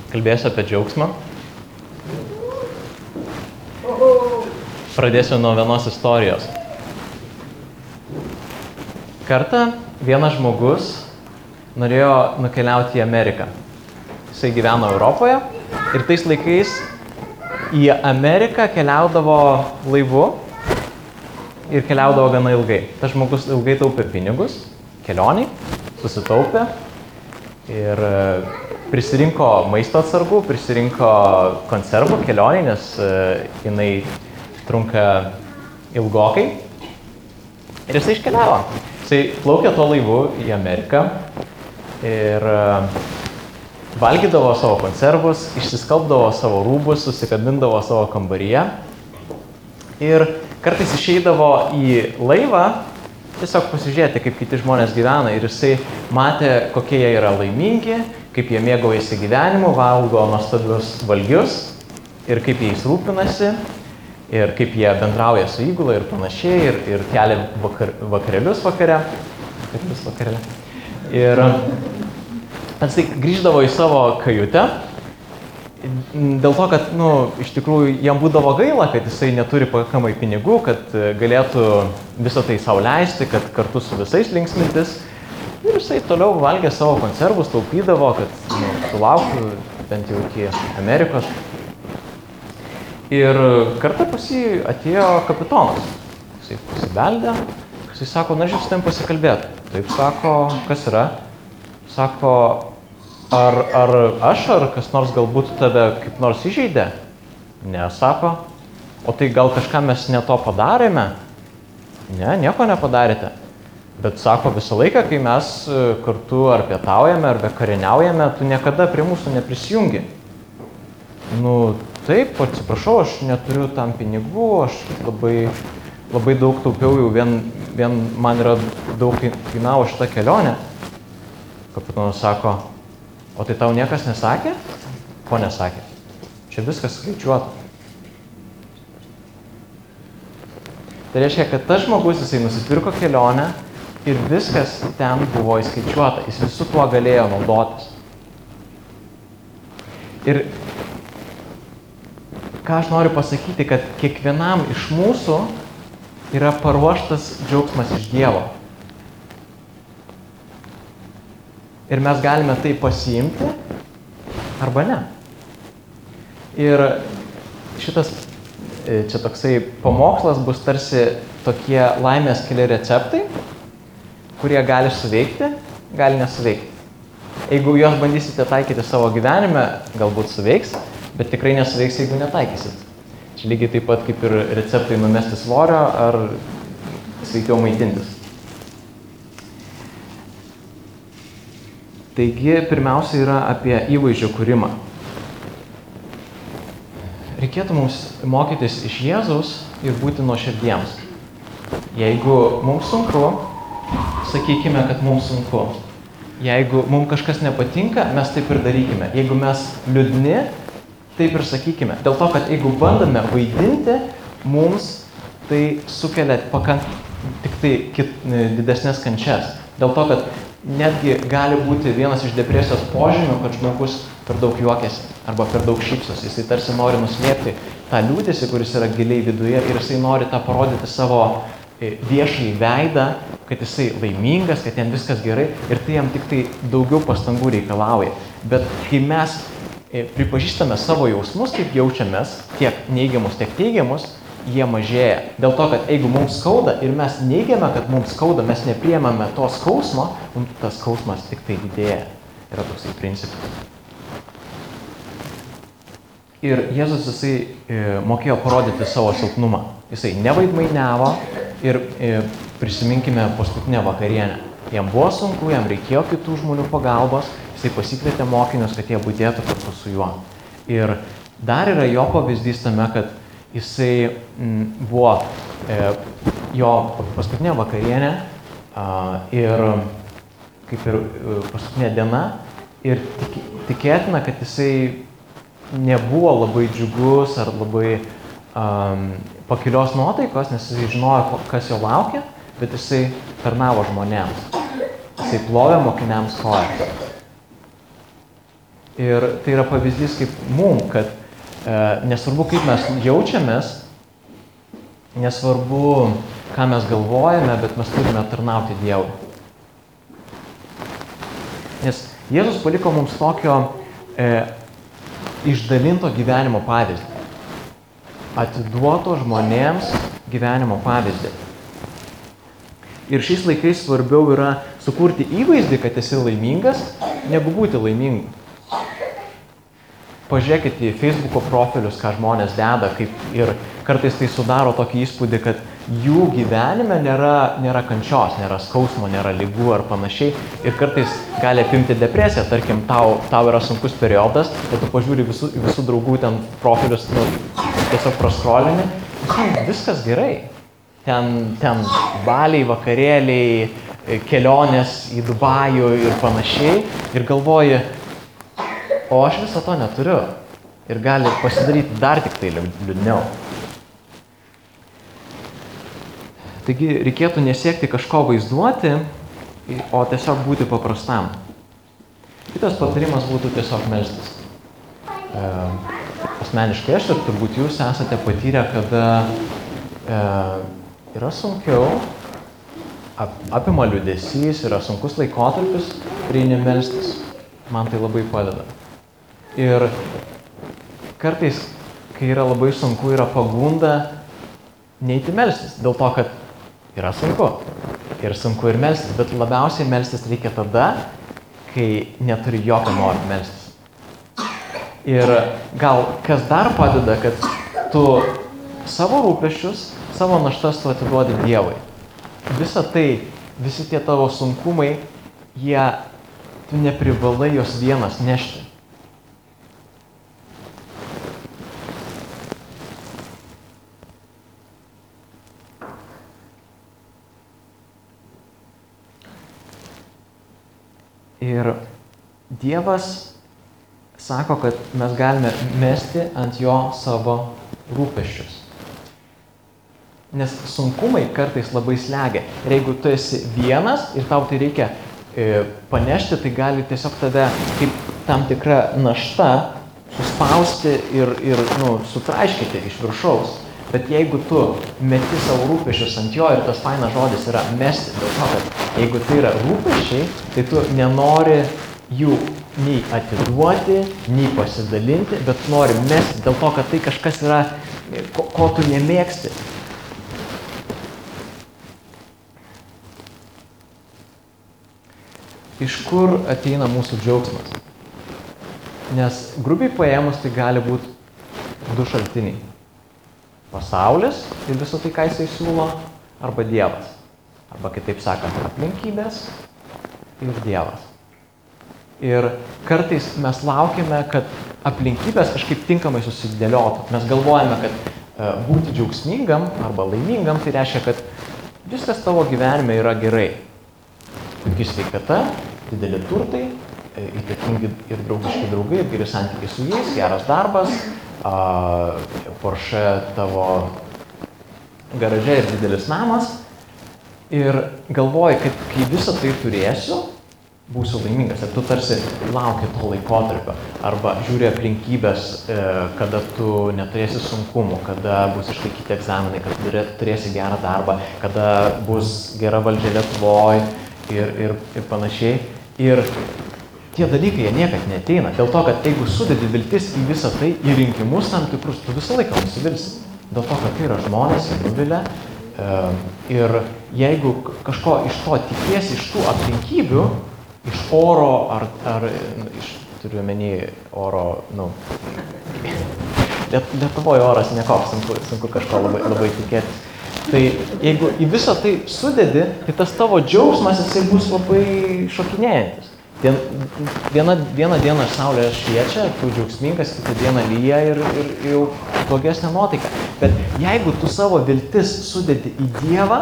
Kalbėsiu apie džiaugsmą. Pradėsiu nuo vienos istorijos. Kartą vienas žmogus norėjo nukeliauti į Ameriką. Jisai gyveno Europoje ir tais laikais į Ameriką keliaudavo laivu ir keliaudavo gana ilgai. Tas žmogus ilgai taupė pinigus, kelioniai, susitaupė ir prisirinko maisto atsargų, prisirinko konservų kelioniai, nes jinai trunka ilgokai. Ir jisai iškeliavo. Jisai plaukė tuo laivu į Ameriką ir valgydavo savo konservus, išsiskalbdavo savo rūbus, susikabindavo savo kambaryje. Ir kartais išeidavo į laivą tiesiog pasižiūrėti, kaip kiti žmonės gyvena. Ir jisai matė, kokie jie yra laimingi, kaip jie mėgaujasi gyvenimu, valgo nuostabius valgius ir kaip jais rūpinasi, ir kaip jie bendrauja su įgula ir panašiai, ir kelia vakarėlius vakare. Ir jisai grįždavo į savo kajutę, dėl to, kad, iš tikrųjų, jam būdavo gaila, kad jisai neturi pakankamai pinigų, kad galėtų visą tai sau leisti, kad kartu su visais linksmintis. Ir jisai toliau valgė savo konservus, taupydavo, kad sulauktų bent jau iki Amerikos. Ir kartą pas jį atėjo kapitonas. Jisai pasibeldė, jisai sako, na, žiūrėk, su tavim pasikalbėti. Taip sako, kas yra? Sako, ar aš, ar kas nors galbūt tave kaip nors įžeidė? Ne, sako. O tai gal kažką mes ne to padarėme? Ne, nieko nepadarėte. Bet sako, visą laiką, kai mes kartu ar pietaujame, ar vakarieniaujame, tu niekada prie mūsų neprisijungi. Taip, atsiprašau, aš neturiu tam pinigų, aš labai daug taupiau, jau vien man yra daug kainavo šitą kelionę. Kapitonas sako, o tai tau niekas nesakė? Ko nesakė? Čia viskas skaičiuota. Tai reiškia, kad tas žmogus, jisai nusipirko kelionę ir viskas ten buvo įskaičiuota. Jis visu tuo galėjo naudotis. Ir ką aš noriu pasakyti, kad kiekvienam iš mūsų yra paruoštas džiaugsmas iš Dievo. Ir mes galime tai pasiimti arba ne. Ir šitas čia toksai pamokslas bus tarsi tokie laimės keli receptai, kurie gali suveikti, gali nesuveikti. Jeigu juos bandysite taikyti savo gyvenime, galbūt suveiks, bet tikrai nesuveiks, jeigu netaikysit. Čia lygiai taip pat kaip ir receptai numesti svorio ar sveikiau maitintis. Taigi, pirmiausia yra apie įvaizdžio kūrimą. Reikėtų mums mokytis iš Jėzaus ir būti nuoširdiems. Jeigu mums sunku, sakykime, kad mums sunku. Jeigu mums kažkas nepatinka, mes taip ir darykime. Jeigu mes liūdni, taip ir sakykime. Dėl to, kad jeigu bandome vaidinti, mums tai sukelia tik tai didesnės kančias. Dėl to, kad netgi gali būti vienas iš depresijos požymių, kad žmogus per daug juokiasi arba per daug šypsosi. Jisai tarsi nori nuslėpti tą liūdesį, kuris yra giliai viduje, ir jisai nori tą parodyti savo viešai veidą, kad jisai laimingas, kad jam viskas gerai, ir tai jam tik tai daugiau pastangų reikalauja. Bet kai mes pripažįstame savo jausmus, kaip jaučiamės, tiek neigiamus, tiek teigiamus, jie mažėja. Dėl to, kad jeigu mums skauda ir mes neigiame, kad mums skauda, mes nepriemame to skausmo, tas skausmas tik tai didėja. Yra toksai principas. Ir Jėzus, jisai mokėjo parodyti savo silpnumą. Jisai nevaidmainiavo ir prisiminkime paskutinę vakarienę. Jam buvo sunku, jam reikėjo kitų žmonių pagalbos, jisai pasikvietė mokinius, kad jie budėtų kartu su juo. Ir dar yra jo pavyzdys tame, kad jisai buvo jo paskutinė vakarienė ir kaip ir paskutinė diena, ir tikėtina, kad jisai nebuvo labai džiugus ar labai pakilios nuotaikos, nes jisai žinojo, kas jo laukia, bet jisai tarnavo žmonėms. Jisai plovė mokiniams kojas. Ir tai yra pavyzdys kaip mum, kad nesvarbu, kaip mes jaučiamės, nesvarbu, ką mes galvojame, bet mes turime tarnauti Dievui. Nes Jėzus paliko mums tokio išdalinto gyvenimo pavyzdį. Atiduoto žmonėms gyvenimo pavyzdį. Ir šiais laikais svarbiau yra sukurti įvaizdį, kad esi laimingas, negu būti laimingu. Pažiūrėkite į Facebook'o profilius, ką žmonės deda, ir kartais tai sudaro tokį įspūdį, kad jų gyvenime nėra kančios, nėra skausmo, nėra ligų ar panašiai. Ir kartais gali apimti depresiją, tarkim, tau yra sunkus periodas, bet tu pažiūri visų draugų ten profilius, tiesiog praskrolini, viskas gerai. Ten baliai, vakarėliai, kelionės į Dubajų ir panašiai. Ir galvoji, o aš viso to neturiu. Ir gali pasidaryti dar tik tai liūdniau. Taigi reikėtų nesiekti kažko vaizduoti, o tiesiog būti paprastam. Kitas patarimas būtų tiesiog melstis. Asmeniškai aš ir turbūt jūs esate patyrę, kada yra sunkiau, apima liūdesys, yra sunkus laikotarpis, prieini melstis. Man tai labai padeda. Ir kartais, kai yra labai sunku, yra pagunda neiti melstis, dėl to, kad yra sunku. Ir sunku ir melstis, bet labiausiai melstis reikia tada, kai neturi jokio noro melstis. Ir gal kas dar padeda, kad tu savo rūpesčius, savo naštas tu atiduodi Dievui. Visa tai, visi tie tavo sunkumai, tu neprivalai jos vienas nešti. Ir Dievas sako, kad mes galime mesti ant jo savo rūpesčius. Nes sunkumai kartais labai slegia. Ir jeigu tu esi vienas ir tau tai reikia panešti, tai gali tiesiog tave kaip tam tikra našta suspausti ir sutraiškyti iš viršaus. Bet jeigu tu meti savo rūpesčius ant jo, ir tas fainas žodis yra mesti, dėl to, kad jeigu tai yra rūpesčiai, tai tu nenori jų nei atiduoti, nei pasidalinti, bet nori mesti dėl to, kad tai kažkas yra, ko tu nemėgsti. Iš kur ateina mūsų džiaugsmas? Nes grubiai paėmus tai gali būti du šaltiniai. Pasaulis ir visą tai, ką jisai siūlo, arba Dievas. Arba kitaip sakant, aplinkybės ir Dievas. Ir kartais mes laukiame, kad aplinkybės kažkaip tinkamai susidėliotų. Mes galvojame, kad būti džiaugsmingam arba laimingam, tai reiškia, kad viskas tavo gyvenime yra gerai. Puiki sveikata, dideli turtai, įtakingi ir draugiški draugai, ir geri santykiai su jais, geras darbas, Porsche tavo garaže ir didelis namas. Ir galvoji, kad kai visą tai turėsiu, būsiu laimingas. Ir tu tarsi lauki to laikotarpio. Arba žiūri aplinkybės, kada tu neturėsi sunkumų, kada bus išlaikyti egzaminai, kada turėsi gerą darbą, kada bus gera valdžia Lietuvoj ir panašiai. Ir tie dalykai, jie niekad neateina. Dėl to, kad jeigu sudedi viltis į visą tai, į rinkimus tam tikrus, tu visą laiką nusivilsi. Dėl to, kad tai yra žmonės, jie nuvilia. Ir jeigu kažko iš to tikiesi, iš tų aplinkybių, iš oro ar turiu omeny oro, Lietuvoje oras nekoks, sunku kažko labai tikėtis. Tai jeigu į visą tai sudedi, tai tas tavo džiaugsmas, jisai bus labai šokinėjantis. Vieną dieną saulė šviečia, tu džiaugsmingas, kitą dieną lyja ir jau blogesnė nuotaika. Bet jeigu tu savo viltis sudedi į Dievą,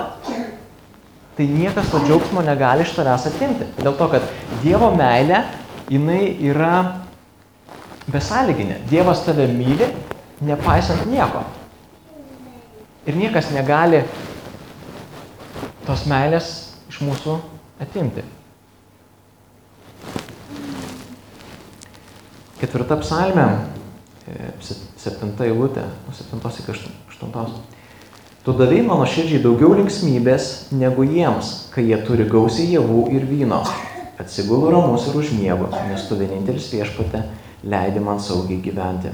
tai niekas to džiaugsmo negali iš tavęs atimti. Dėl to, kad Dievo meilė, jinai yra besąlyginė. Dievas tave myli, nepaisant nieko. Ir niekas negali tos meilės iš mūsų atimti. 4 psalmė, 7 eilutė, nuo 7 iki 8. Tu davei mano širdžiai daugiau linksmybės negu jiems, kai jie turi gausiai javų ir vyno. Atsigulu ramus ir užmiegu, nes tu vienintelis Viešpatie leidi man saugiai gyventi.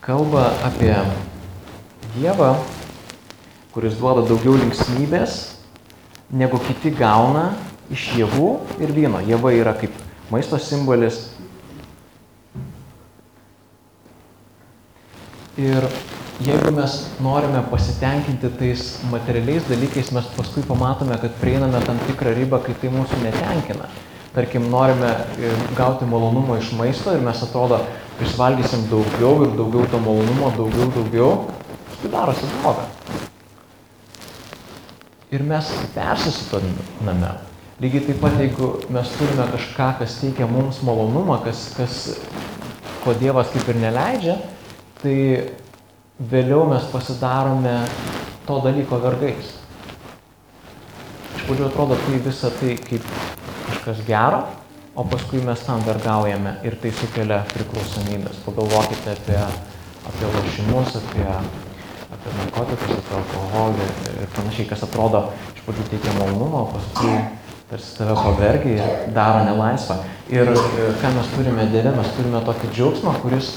Kalba apie Dievą, kuris duoda daugiau linksmybės, negu kiti gauna iš javų ir vyno. Javai yra kaip maisto simbolis. Ir jeigu mes norime pasitenkinti tais materialiais dalykais, mes paskui pamatome, kad prieiname tam tikrą ribą, kai tai mūsų netenkina. Tarkim, norime gauti malonumo iš maisto ir mes atrodo, išvalgysim daugiau ir daugiau to malonumo, daugiau, tai darosi bloga. Ir mes persisutoname. Lygiai taip pat, jeigu mes turime kažką, kas teikia mums malonumą, ko Dievas kaip ir neleidžia, tai vėliau mes pasidarome to dalyko vergais. Iš pradžių atrodo, tai visą tai kaip kažkas gero, o paskui mes tam vergaujame ir tai sukelia priklausomybės. Pagalvokite apie lošimus, apie narkotikus, apie alkoholį ir panašiai, kas atrodo iš pradžių teikia malonumą, o paskui tarsi tave pavergia ir daro nelaisvą. Ir ką mes turime Dieve, mes turime tokį džiaugsmą, kuris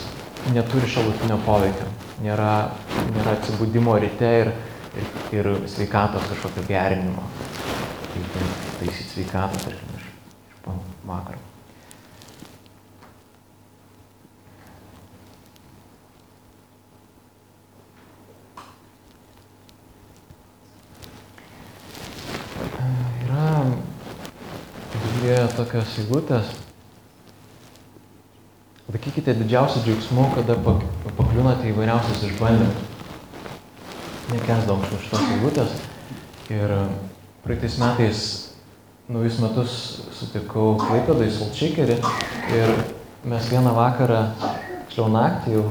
neturi šalutinio poveikio. Nėra atsibudimo ryte ir sveikatos kažkokio gerinimo. Taisyti sveikatą, tarkim, iš vakaro. Yra Biblijoje tokios eilutės. Laikykite didžiausių džiaugsmų, kada pakliūnate įvairiausius išbandymus. Nekęsdavom šitos eilutės. Ir praeitais metais naujus metus sutikau Klaipėdoj Solčeikerį ir mes vieną vakarą, tiksliau naktį, jau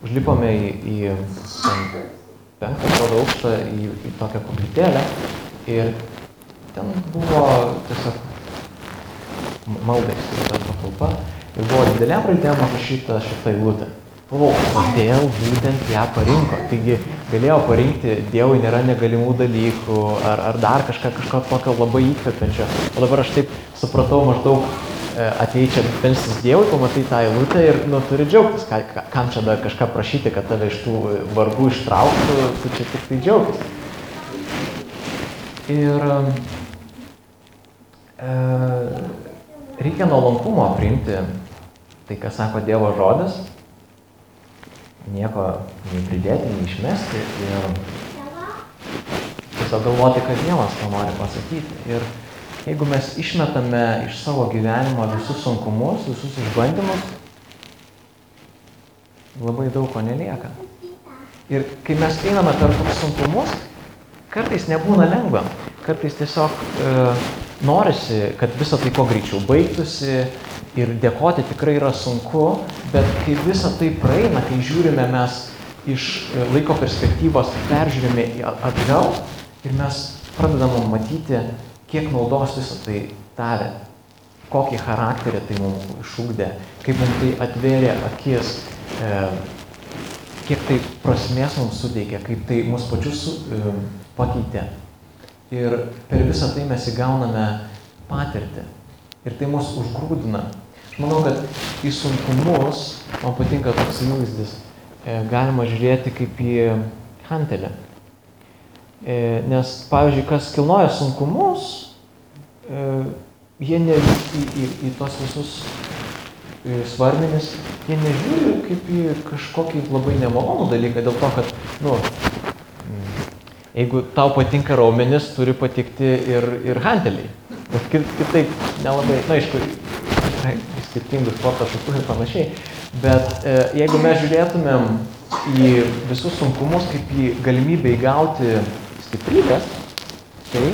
užlipome į 5 aukštą į tokią koplytėlę ir ten buvo tiesiog maldai skirta patalpa. Ir buvo didelėm raidėm užrašyta šitą eilutę. Kodėl būtent ją parinko? Taigi galėjo parinkti Dievui nėra negalimų dalykų ar dar kažko tokio labai įkvepiančio. O dabar aš taip supratau maždaug atei čia melstis Dievui, pamatai tą eilutę ir turi džiaugtis. Kam čia dar kažką prašyti, kad tave iš tų vargų ištrauktų, tu čia tik tai džiaugtis. Ir reikia nuolankumo priimti tai, ką sako Dievo žodis, nieko nei pridėti, nei išmesti ir tiesiog galvoti, kad Dievas to nori pasakyti. Ir jeigu mes išmetame iš savo gyvenimo visus sunkumus, visus išbandymus, labai daug ko nelieka. Ir kai mes einame per tokius sunkumus, kartais nebūna lengva, kartais tiesiog norisi, kad visą tai kuo greičiau baigtųsi ir dėkoti tikrai yra sunku, bet kai visą tai praeina, kai žiūrime mes iš laiko perspektyvos, peržiūrime atgal ir mes pradedame matyti, kiek naudos visą tai davė, kokį charakterį tai mums išugdė, kaip mums tai atvėrė akis, kiek tai prasmės mums suteikė, kaip tai mus pačius pakeitė. Ir per visą tai mes įgauname patirtį. Ir tai mus užgrūdina. Aš manau, kad į sunkumus, man patinka toks įvaizdis, galima žiūrėti kaip į hantelę. Nes, pavyzdžiui, kas kilnoja sunkumus, jie į tos visus svarmenis, jie nežiūri kaip į kažkokį labai nemalonų dalyką, dėl to, kad, jeigu tau patinka raumenis, turi patikti ir hanteliai. Bet kitaip nelabai, aišku, skirtingų sporto šakų ir panašiai. Bet jeigu mes žiūrėtumėm į visus sunkumus kaip į galimybę įgauti stiprybės, tai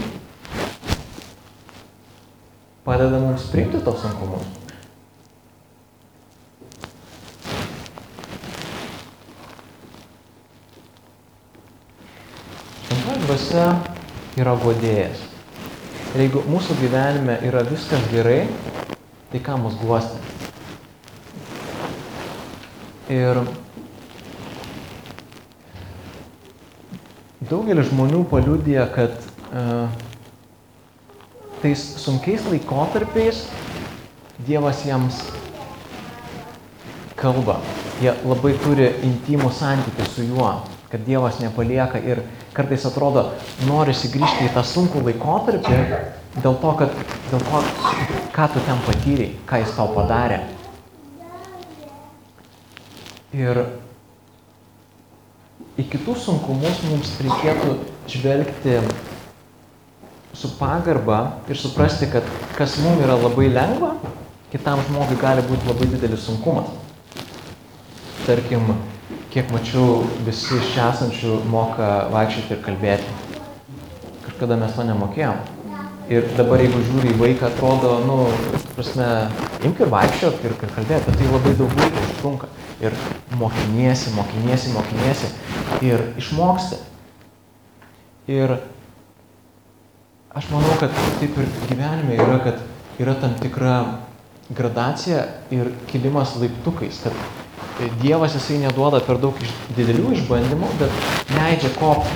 padeda mums priimti tos sunkumus. Šventoji dvasia yra guodėjas. Ir jeigu mūsų gyvenime yra viskas gerai, tai ką mus guosti. Ir daugelis žmonių paliudija, kad tais sunkiais laikotarpiais Dievas jiems kalba. Jie labai turi intimų santykį su juo, kad Dievas nepalieka ir kartais atrodo, norisi grįžti į tą sunkų laikotarpį dėl to, ką tu ten patyrei, ką jis tau padarė. Ir į kitus sunkumus mums reikėtų žvelgti su pagarba ir suprasti, kad kas mums yra labai lengva, kitam žmogui gali būti labai didelis sunkumas. Tarkim, kiek mačiau, visi iš čia esančių moka vaikščioti ir kalbėti. Kažkada mes to nemokėjom. Ir dabar, jeigu žiūri į vaiką, atrodo, imk ir vaikščiot ir kalbėti, tai labai daug laiko užtrunka. Ir mokiniesi ir išmoksti. Ir aš manau, kad taip ir gyvenime yra, kad yra tam tikra gradacija ir kilimas laiptukais, kad Dievas jisai neduoda per daug didelių išbandymų, bet leidžia kopti.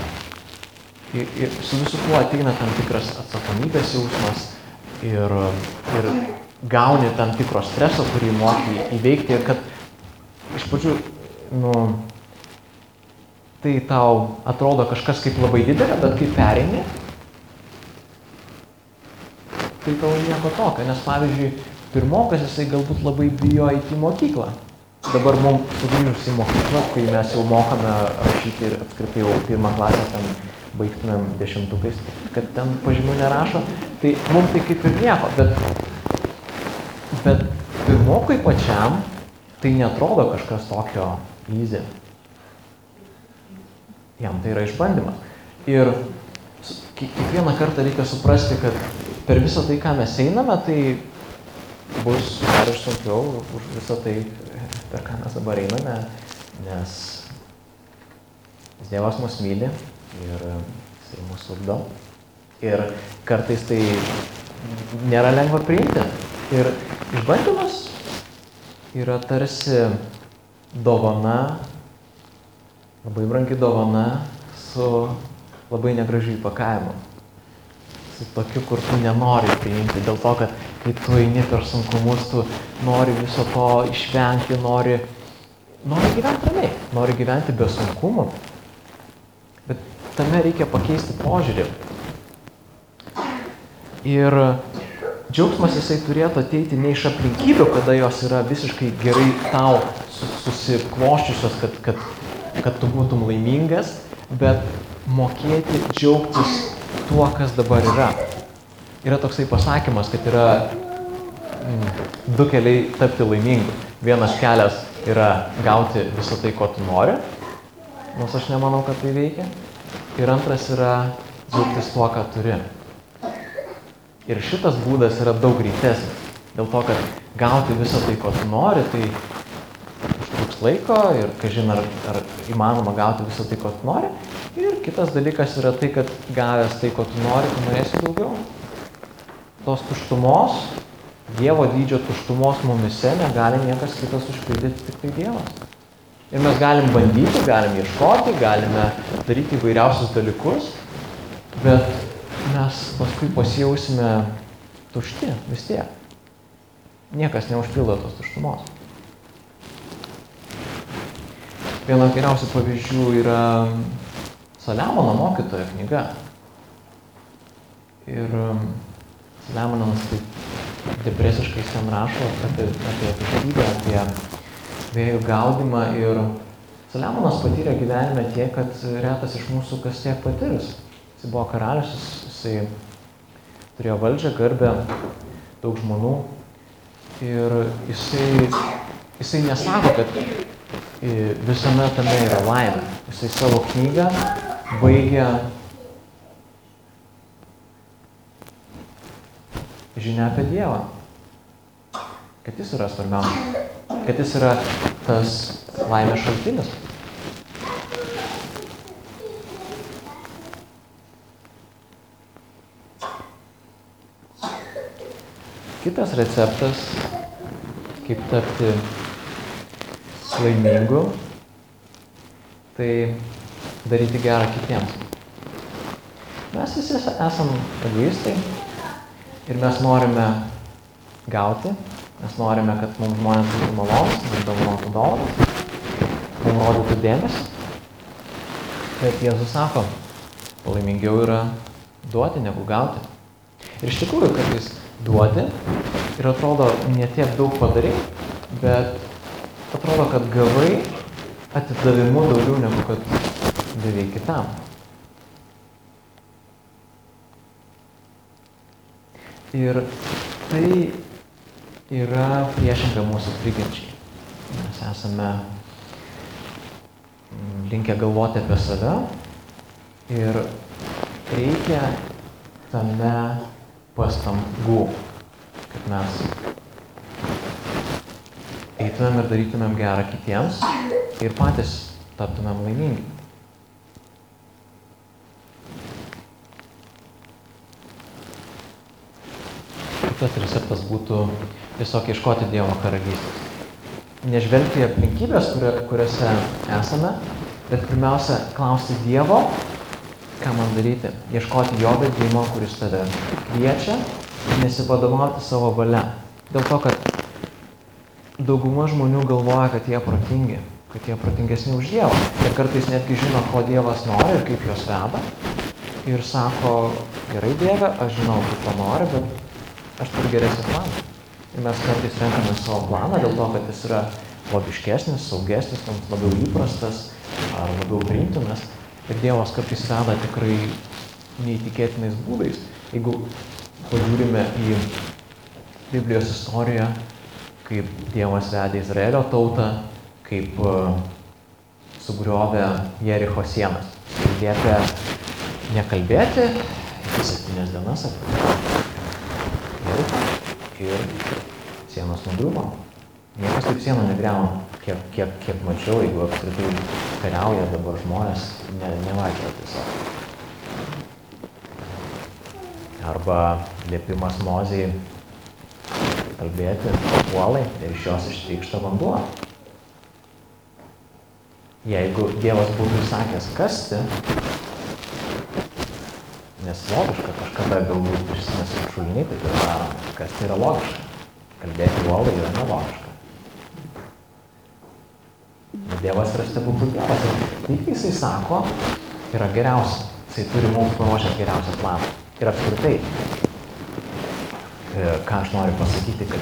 Ir su visu tuo ateina tam tikras atsakomybės jausmas ir gauni tam tikro streso, kurį moki įveikti ir kad iš pradžių, tai tau atrodo kažkas kaip labai didelė, bet kai pereini, tai tau nieko tokio, nes pavyzdžiui, pirmokas jisai galbūt labai bijo eiti į mokyklą. Dabar mums sugrįžus į mokyklą, kai mes jau mokame rašyti ir apskritai jau pirmą klasę ten baigtumėm 10-ukais, kad ten pažymių nerašo, tai mums tai kaip ir nieko, bet pirmokui pačiam tai neatrodo kažkas tokio easy. Jam tai yra išbandymas. Ir kiekvieną kartą reikia suprasti, kad per visą tai, ką mes einame, tai bus dar ir sunkiau už visą tai, per ką mes dabar einame, nes Dievas mus myli ir jisai mus ugdo. Ir kartais tai nėra lengva priimti. Ir išbandymas yra tarsi dovana, labai brangi dovana su labai negražiu įpakavimu. Su tokiu, kur tu nenori priimti, dėl to, kad kai tu eini per sunkumus, tu nori viso to išvengti, nori gyventi ramiai, nori gyventi be sunkumų. Bet tame reikia pakeisti požiūrį. Ir džiaugsmas jisai turėtų ateiti ne iš aplinkybių, kada jos yra visiškai gerai tau susikloščiusios, kad tu būtum laimingas, bet mokėti džiaugtis tuo, kas dabar yra. Yra toksai pasakymas, kad yra du keliai tapti laimingu. Vienas kelias yra gauti visą tai, ko tu nori, nors aš nemanau, kad tai veikia. Ir antras yra džiaugtis tuo, ką turi. Ir šitas būdas yra daug greitesnis. Dėl to, kad gauti visą tai, ko tu nori, tai užtruks laiko ir kažin ar įmanoma gauti visą tai, ko tu nori. Ir kitas dalykas yra tai, kad gavęs tai, ko tu nori, tu norėsi daugiau. Tos tuštumos, Dievo dydžio tuštumos mumise negali niekas kitas užpildyti, tik tai Dievas. Ir mes galim bandyti, galim ieškoti, galime daryti įvairiausius dalykus, bet mes paskui pasijausime tušti vis tiek. Niekas neužpildo tos tuštumos. Vienas geriausių pavyzdžių yra Saliamono mokytojo knyga. Ir Saliamonas taip depresiškai ten rašo apie tuštybę, apie vėjų gaudymą. Ir Saliamonas patyrė gyvenime tiek, kad retas iš mūsų kas tiek patirs. Jis buvo karalius, jisai turėjo valdžią, garbę, daug žmonų. Ir jisai nesako, kad visame tame yra laimė. Jisai savo knygą baigia žinia apie Dievą. Kad jis yra svarbiausia. Kad jis yra tas laimės šaltinis. Kitas receptas kaip tapti laimingu, tai daryti gerą kitiems. Mes visi esam egoistai ir mes norime gauti, mes norime, kad mums žmonės būtų malonus, mums dovanotų dovanas, mums rodytų dėmesį. Bet Jėzus sako, laimingiau yra duoti negu gauti. Ir iš tikrųjų, kad jis duodi ir atrodo ne tiek daug padarai, bet atrodo, kad gavai atidavimu daugiau negu kad davei kitam. Ir tai yra priešinga mūsų prigimčiai. Mes esame linkę galvoti apie save ir reikia tame pastangų, kad mes eitumėm ir darytumėm gerą kitiems ir patys taptumėm laimingi. Kitas receptas būtų tiesiog ieškoti Dievo karalystės. Nežvelgti į aplinkybės, kuriuose esame, bet pirmiausia klausti Dievo, ką man daryti. Ieškoti jo vedimo, kuris tave kviečia, ir nesivadovauti savo valia. Dėl to, kad dauguma žmonių galvoja, kad jie protingi, kad jie protingesni už Dievą. Ir kartais netgi žino, ko Dievas nori ir kaip juos veda. Ir sako, gerai Dieve, aš žinau, kaip to nori, bet aš turiu geresnį planą. Ir mes kartais renkame savo planą dėl to, kad jis yra logiškesnis, saugesnis, mums labiau įprastas ar labiau priimtinas. Ir Dievas kartais veda tikrai neįtikėtinais būdais. Jeigu pažiūrime į Biblijos istoriją, kaip Dievas vedė Izraelio tautą, kaip sugriovė Jericho sienas. Ir liepė nekalbėti iki 7 dienas apie Jerichą ir sienos nugriuvo. Niekas taip sienų negriauna, kiek mačiau, jeigu apskritai kariauja dabar žmonės, nevaikščioja tiesiog. Arba liepimas Mozei kalbėti uolai ir iš jos ištrykšta vanduo. Jeigu Dievas būtų įsakęs kasti, nes logiška, kažkada galbūt prisimės šuliniai, tai yra daroma. Kas tai yra logiška? Kalbėti uolai yra nelogiška. Bet Dievas yra stebuklų Dievas. Tai, kai jisai sako, yra geriausia. Jisai turi mums paruošęs geriausią planą. Ir apskritai, ką aš noriu pasakyti, kad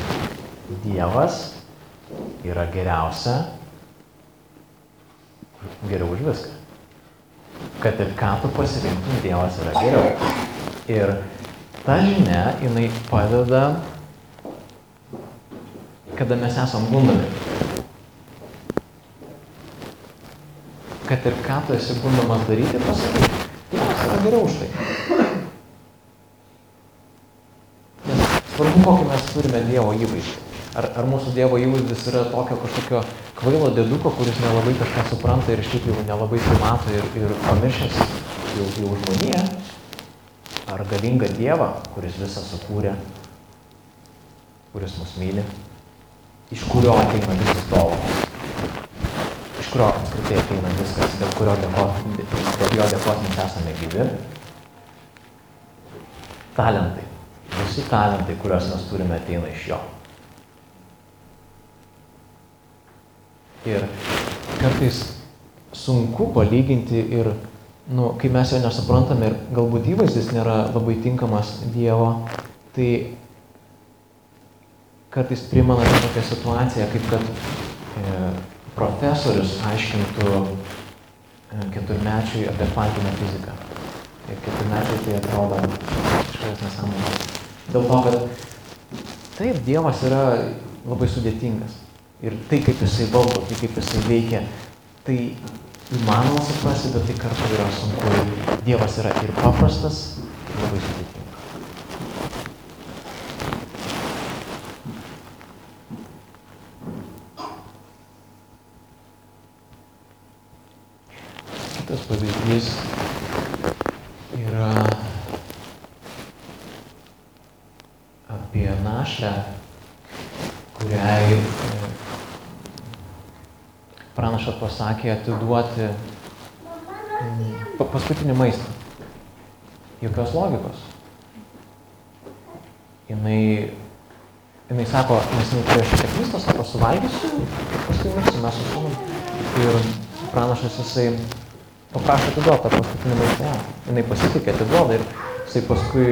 Dievas yra geriausia, geriau už viską. Kad ir ką tu pasirinktum, Dievas yra geriau. Ir ta žinia, jinai padeda, kada mes esam gundomi. Kad ir ką tu esi gundomas daryti, pasakyk, Dievas yra geriau už tai. Nes svarbu, kokį mes turime Dievo įvaizdį. Ar mūsų Dievo įvaizdis yra tokio kažkokio kvailo dėduko, kuris nelabai kažką supranta ir šiaip jau nelabai mato ir pamiršęs jau žmoniją, ar galingą Dievą, kuris visą sukūrė, kuris mus myli, iš kurio ateina visas dovanos, iš kurio apskritai ateina viskas, dėl jo dėkos mes esame gyvi. Talentai, visi talentai, kuriuos mes turime, ateina iš jo. Ir kartais sunku palyginti ir, kai mes jo nesuprantame ir galbūt įvaizdis nėra labai tinkamas Dievo, tai kartais primena tokią situaciją, kaip kad profesorius aiškintų 4-mečiui apie kvantinę fiziką. Ir 4-mečiai tai atrodo kažkas nesąmonės. Dėl to, kad taip, Dievas yra labai sudėtingas. Ir tai, kaip jisai valdo, tai kaip jisai veikia, tai įmanoma suprasti, bet tai kartu yra sunku. Dievas yra ir paprastas, ir labai sudėtingas. Kitas pavyzdys yra apie našlę, kuriai pranašas pasakė atiduoti paskutinį maistą. Jokios logikos. Jinai sako, nes jinai turėjo šiek tiek maisto, sako, suvalgysiu, paskui mirsiu, mes su sūnum. Ir pranašas jisai paprašė atiduoti tą paskutinį maistą. Jinai pasitikė, atiduoda ir jisai paskui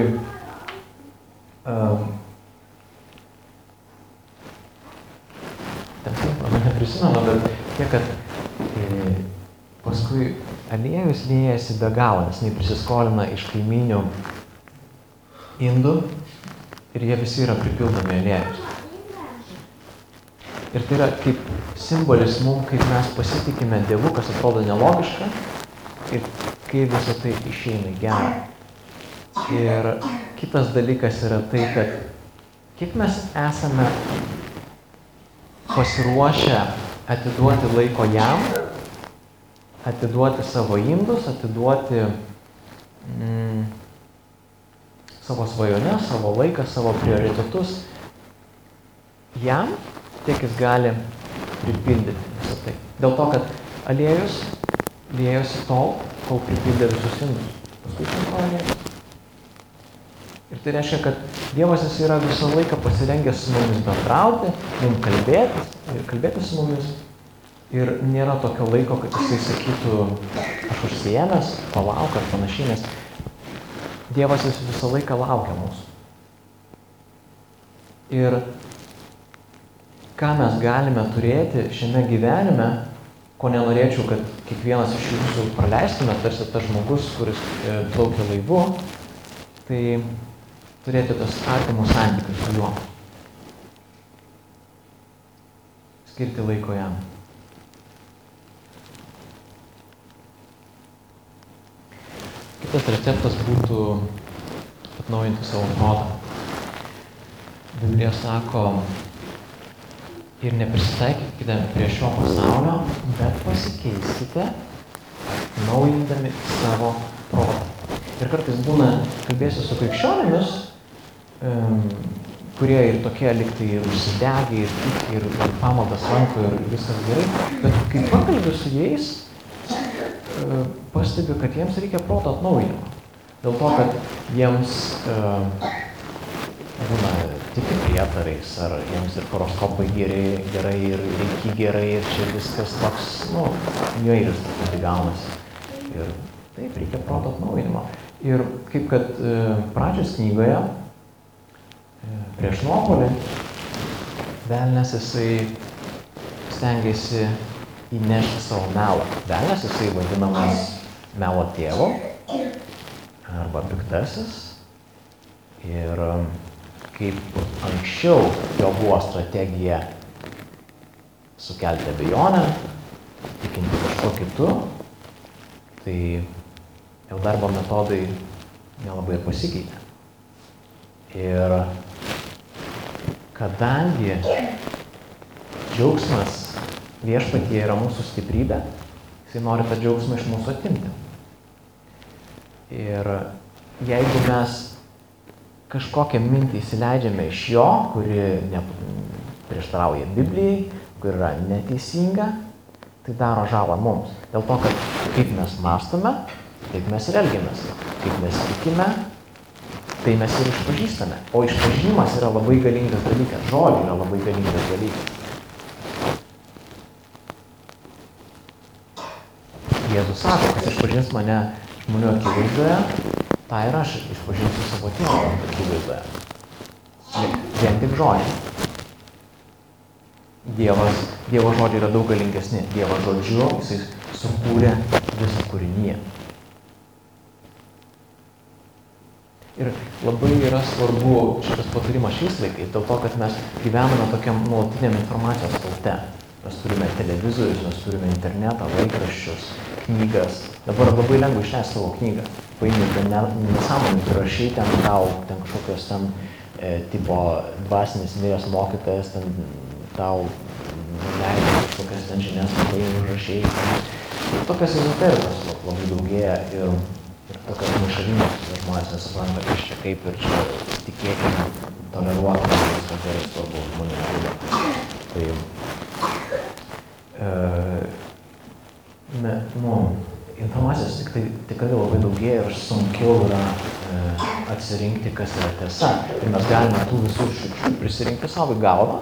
neprisimenu, bet tiek, kad paskui aliejus liejasi be galo, nes jinai prisiskolina iš kaiminių indų ir jie visi yra pripildomi aliejus. Ir tai yra kaip simbolis mums, kaip mes pasitikime Dievu, kas atrodo nelogiška ir kaip visą tai išeina į gerą. Ir kitas dalykas yra tai, kad kiek mes esame pasiruošę atiduoti laiko jam, atiduoti savo indus, atiduoti savo svajones, savo laiką, savo prioritetus jam, tiek jis gali pripildyti visą tai. Dėl to, kad aliejus liejosi tol, kol pripildė visus indus. Paskui šimto aliejus. Ir tai reiškia, kad Dievas jis yra visą laiką pasirengęs su mumis bendrauti, mums kalbėti su mumis. Ir nėra tokio laiko, kad jisai sakytų, aš užsiėmęs, palauk ar panašiai, nes Dievas jis visą laiką laukia mūsų. Ir ką mes galime turėti šiame gyvenime, ko nenorėčiau, kad kiekvienas iš jūsų praleistume, tarsi tas žmogus, kuris plaukia laivu, tai turėti tas artimus santykius su juo. Skirti laiko jam. Kitas receptas būtų atnaujinti savo protą. Biblija sako, ir neprisitaikykite prie šio pasaulio, bet pasikeiskite, naujindami savo protą. Ir kartais būna, kalbėsiu su krikščionimis, kurie ir tokie liktai ir užsidegę, ir tiki, ir pamaldas lanko, ir viskas gerai. Bet kai pakalbiu su jais, pastebiu, kad jiems reikia proto atnaujinimo. Dėl to, kad jiems būna tiki prietarais, ar jiems ir horoskopai gerai, ir reiki gerai, ir čia viskas toks, niuairis tai gaunasi. Ir taip, reikia proto atnaujinimo. Ir kaip kad pradžios knygoje, prieš nuopuolį, velnias jisai stengiasi įnešti savo melą. Velnias jisai vadinamas melo tėvu arba piktasis. Ir kaip anksčiau jo buvo strategija sukelti abejonę, tikinti kažko kitu, tai jau darbo metodai nelabai pasikeitė. Ir kadangi džiaugsmas viešpatyje yra mūsų stiprybė, jisai nori tą džiaugsmą iš mūsų atimti. Ir jeigu mes kažkokią mintį įsileidžiame iš jo, kuri prieštarauja Biblijai, kuri yra neteisinga, tai daro žalą mums. Dėl to, kad kaip mes mąstome, taip mes ir elgiamės. Kaip mes tikime, tai mes ir išpažįstame. O išpažinimas yra labai galingas dalykas. Žodžiai yra labai galingas dalykas. Jėzus sako, kas išpažins mane žmonių akivaizdoje, tą ir aš išpažinsiu savo tėvo akivaizdoje. Vien tik žodžiai. Dievo žodžiai yra daug galingesni. Dievo žodžiu jisai sukūrė visą kūrinyje. Ir labai yra svarbu šitas patarimas šiais laikais, dėl to, kad mes gyvename tokiam nuolatiniam informacijos sraute. Mes turime televizorius, mes turime internetą, laikraščius, knygas. Dabar labai lengva išleisti savo knygą. Paimti nesąmonį, rašai ten tau, ten kažkokios ten tipo dvasinis miręs mokytojas, ten tau leido kažkokias ten žinias, paimti užrašai. Tokias ezoterikos labai daugėja ir tokios maišalinės žmonės nesupranta, kas čia kaip ir čia tikėkime toleruotume, viskas gerai, svarbu žmonių žudo. Tai, informacijos tikrai labai daugėja ir sunkiau yra atsirinkti, kas yra tiesa. Ir mes galime tų visų šiukšlių prisirinkti savo į galvą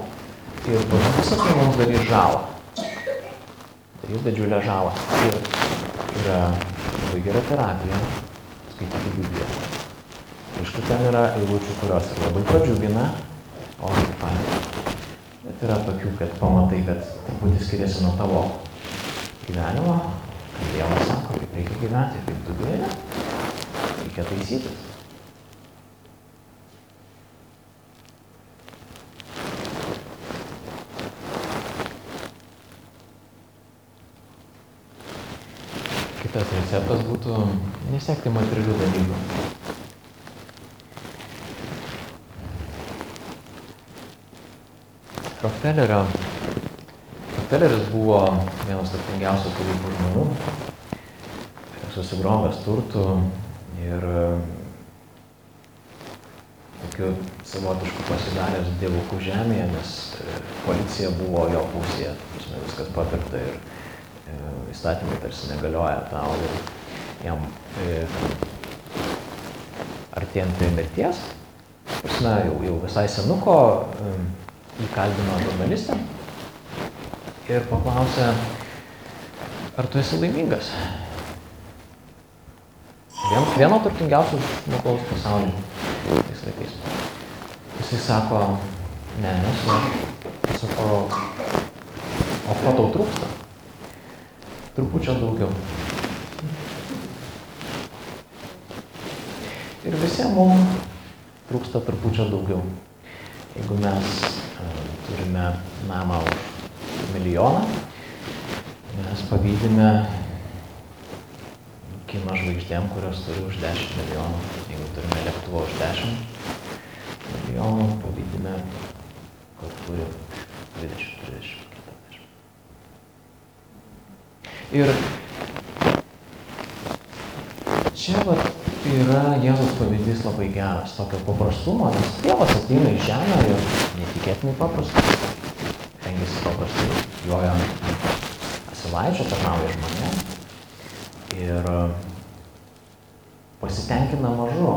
ir visą tai mums darys žalą. Darys didžiulę žalą. Ir yra labai gera terapija skaityti Bibliją. Aišku, ten yra eilučių, kurios ir labai pradžiugina, o taip pat. Bet yra tokių, kad pamatai, kad truputį skiriasi nuo tavo gyvenimo, kad Dievas sako, kaip reikia gyventi, kaip tu gyveni, reikia taisytis. Kitas receptas būtų nesiekti materialių dalykų. Rockefelleris buvo vienas turtingiausių tarybų žmonių, susigrovęs turtų ir tokiu savotišku pasidaręs dievukų žemėje, nes policija buvo jo pusėje, viskas papirkta ir įstatymai tarsi negalioja tau ir jam artėjant prie mirties, jau visai senuko, įkalbino žurnalistę ir paklausė, ar tu esi laimingas? Vieno turtingiausių žmogaus pasaulyje tais laikais. Jisai sako, ne, nesu. Sako, o ko tau trūksta? Trupučio daugiau. Ir visiems mums trūksta trupučio daugiau. Jeigu mes turime namą už milijoną, mes pavydime kino žvaigždėm, kurios turi už 10 milijonų. Jeigu turime lėktuvą už 10 milijonų, pavydime, kur turi 20, 30, 40. Ir čia yra Jėzaus pavyzdys labai geras, tokio paprastumo, nes Dievas ateina į žemę ir netikėtinai paprastas, rengiasi paprastai, joja ant asilaičio, tarnauja žmonėm ir pasitenkina mažu.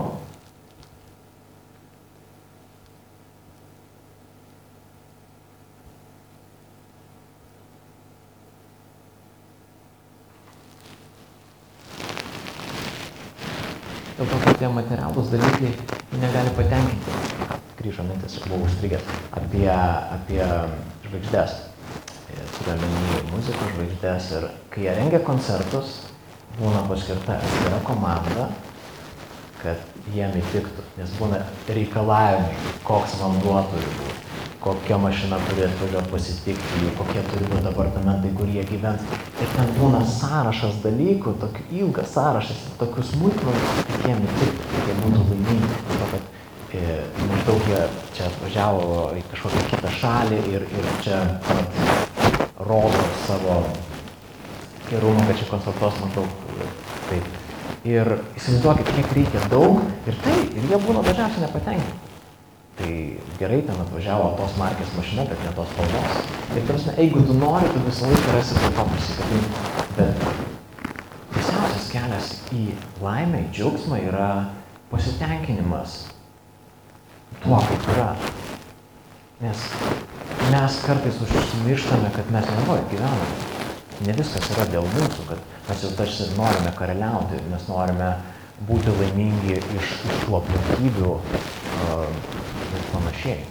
Dėl to, kad tie materialūs dalykai negali patenkinti. Grįžo mintis, buvau užstrigęs apie žvaigždės. Turiu omeny muzikos žvaigždės ir kai jie rengia koncertus, būna paskirta atskira komanda, kad jiem įtiktų, nes būna reikalavimai, koks vanduo turi būti, kokia mašina turi atvažiuoti pasitikti jų, kokie turi būti apartamentai, kur jie gyvens. Ir ten būna sąrašas dalykų, tokių ilgas sąrašas, tokių smulkmenų, kad jiem įtiktų, kad jie būtų laimingi. To, kad maždaug jie čia atvažiavo į kažkokią kitą šalį ir čia rodo savo gerumą, kad čia koncertuos maždaug taip. Ir įsivaizduokit, kiek reikia daug ir jie būna dažniausiai nepatenkinti. Tai gerai, ten atvažiavo tos markės mašina, bet ne tos spalvos. Ir tarsi, jeigu tu nori, tu visą laiką rasi prie to prisikabinti. Bet tiesiausias kelias į laimę, į džiaugsmą yra pasitenkinimas tuo, kaip yra. Nes mes kartais užsimirštame, kad mes nevoje gyvename. Ne viskas yra dėl mūsų, kad mes jau tarsi norime karaliauti, mes norime būti laimingi iš tų aplinkybių ir panašiai.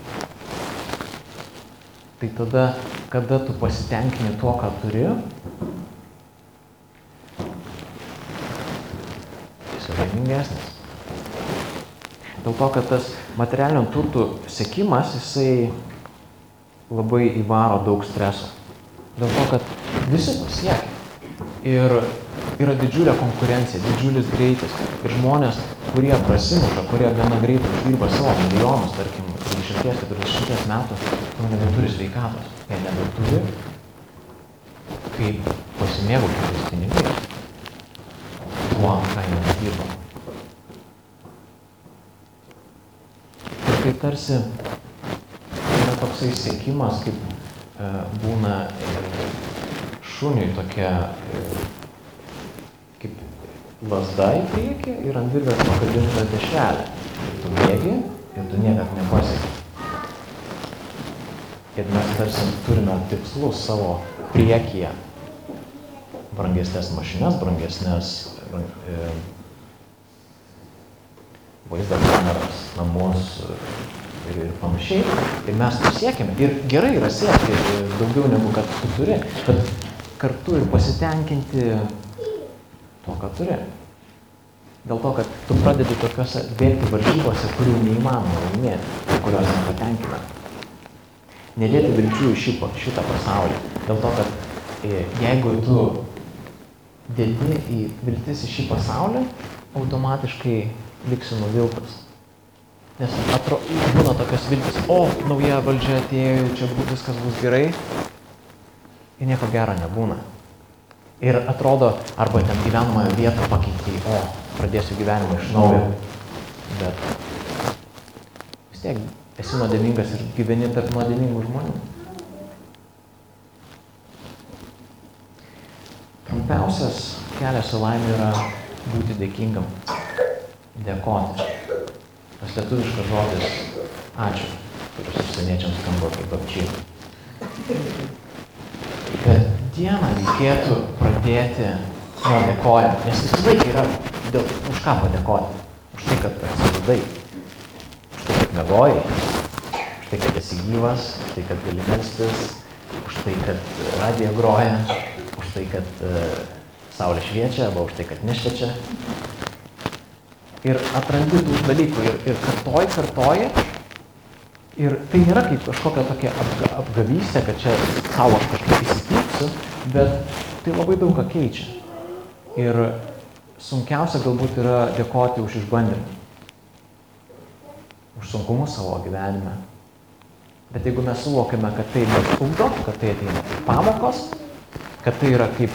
Tai tada, kada tu pasitenkini tuo, ką turi, jis yra laimingesnis. Dėl to, kad tas materialinių turtų sekimas, jisai labai įvaro daug streso. Dėl to, kad visi to siekia. Ir yra didžiulė konkurencija, didžiulis greitis. Ir žmonės, kurie prasimuša, kurie gana greitai uždirba savo milijonus, tarkim, 30-40 metų, nebeturi sveikatos. Jie nebeturi, kaip pasimėgauti tais pinigais. Tuo, ką jie nedirba. Ir tai tarsi toksai siekimas, kaip būna šuniui tokia kaip lazda į priekį ir ant virvės pakabinta dešrelė. Ir tu bėgi ir tu niekad nepasieki. Ir mes tarsi turime tikslus savo priekyje. Brangesnės mašinas, brangesnės vaizdo kameras, namus ir panašiai. Ir mes to siekiame. Ir gerai yra siekti daugiau negu kad tu turi, bet kartu ir pasitenkinti to, ką turi. Dėl to, kad tu pradedi tokiuose bėgti varžybose, kurių neįmanoma laimėti, kurios nepatenkina. Nedėti vilčių į šitą pasaulį. Dėl to, kad jeigu tu dėti į viltis į šį pasaulį, automatiškai liksi nuviltas. Nes būna tokios viltis, nauja valdžia atėjo, čia viskas bus gerai, ir nieko gero nebūna. Ir atrodo, arba ten gyvenamąją vietą pakeitė, pradėsiu gyvenimą iš naujo. Bet vis tiek esi nuodėmingas ir gyveni tarp nuodėmingų žmonių. Trumpiausias kelias į laimę yra būti dėkingam, dėkoti. Tas lietuviškas žodis ačiū, kuris užsieniečiams skamba kaip apčiai. Bet dieną reikėtų pradėti nuo dėkojimo, nes visą laiką yra už ką padėkoti. Už tai, kad atsibudai, už tai, kad miegojai, už tai, kad esi gyvas, už tai, kad gali melstis, už tai, kad radija groja, už tai, kad saulė šviečia, arba už tai, kad nešviečia. Ir atrandi tų dalykų ir kartoji. Ir tai nėra kaip kažkokia tokia apgavystė, kad čia savo aš kažkaip įsipyksiu, bet tai labai daug ką keičia. Ir sunkiausia galbūt yra dėkoti už išbandymą, už sunkumus savo gyvenime. Bet jeigu mes suvokiame, kad tai mus ugdo, kad tai ateina kaip pamokos, kad tai yra kaip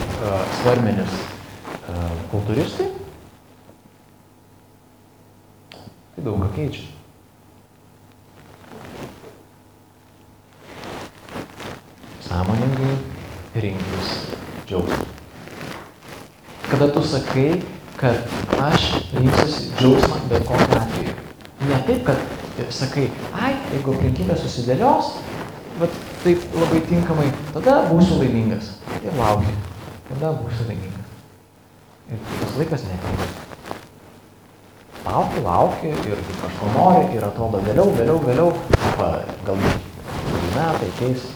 svarmenis kultūristai, tai daug ką keičia. Sąmoningai rinktis džiaugsmą. Kada tu sakai, kad aš rinksiuosi džiaugsmą bet kokiu atveju. Ne taip, kad sakai, jeigu aplinkybė susidėlios, bet taip labai tinkamai, tada būsiu laimingas. Ir lauki, tada būsiu laimingas. Ir tas laikas neateina. Lauki ir kažko nori ir atrodo vėliau, galbūt metai keis.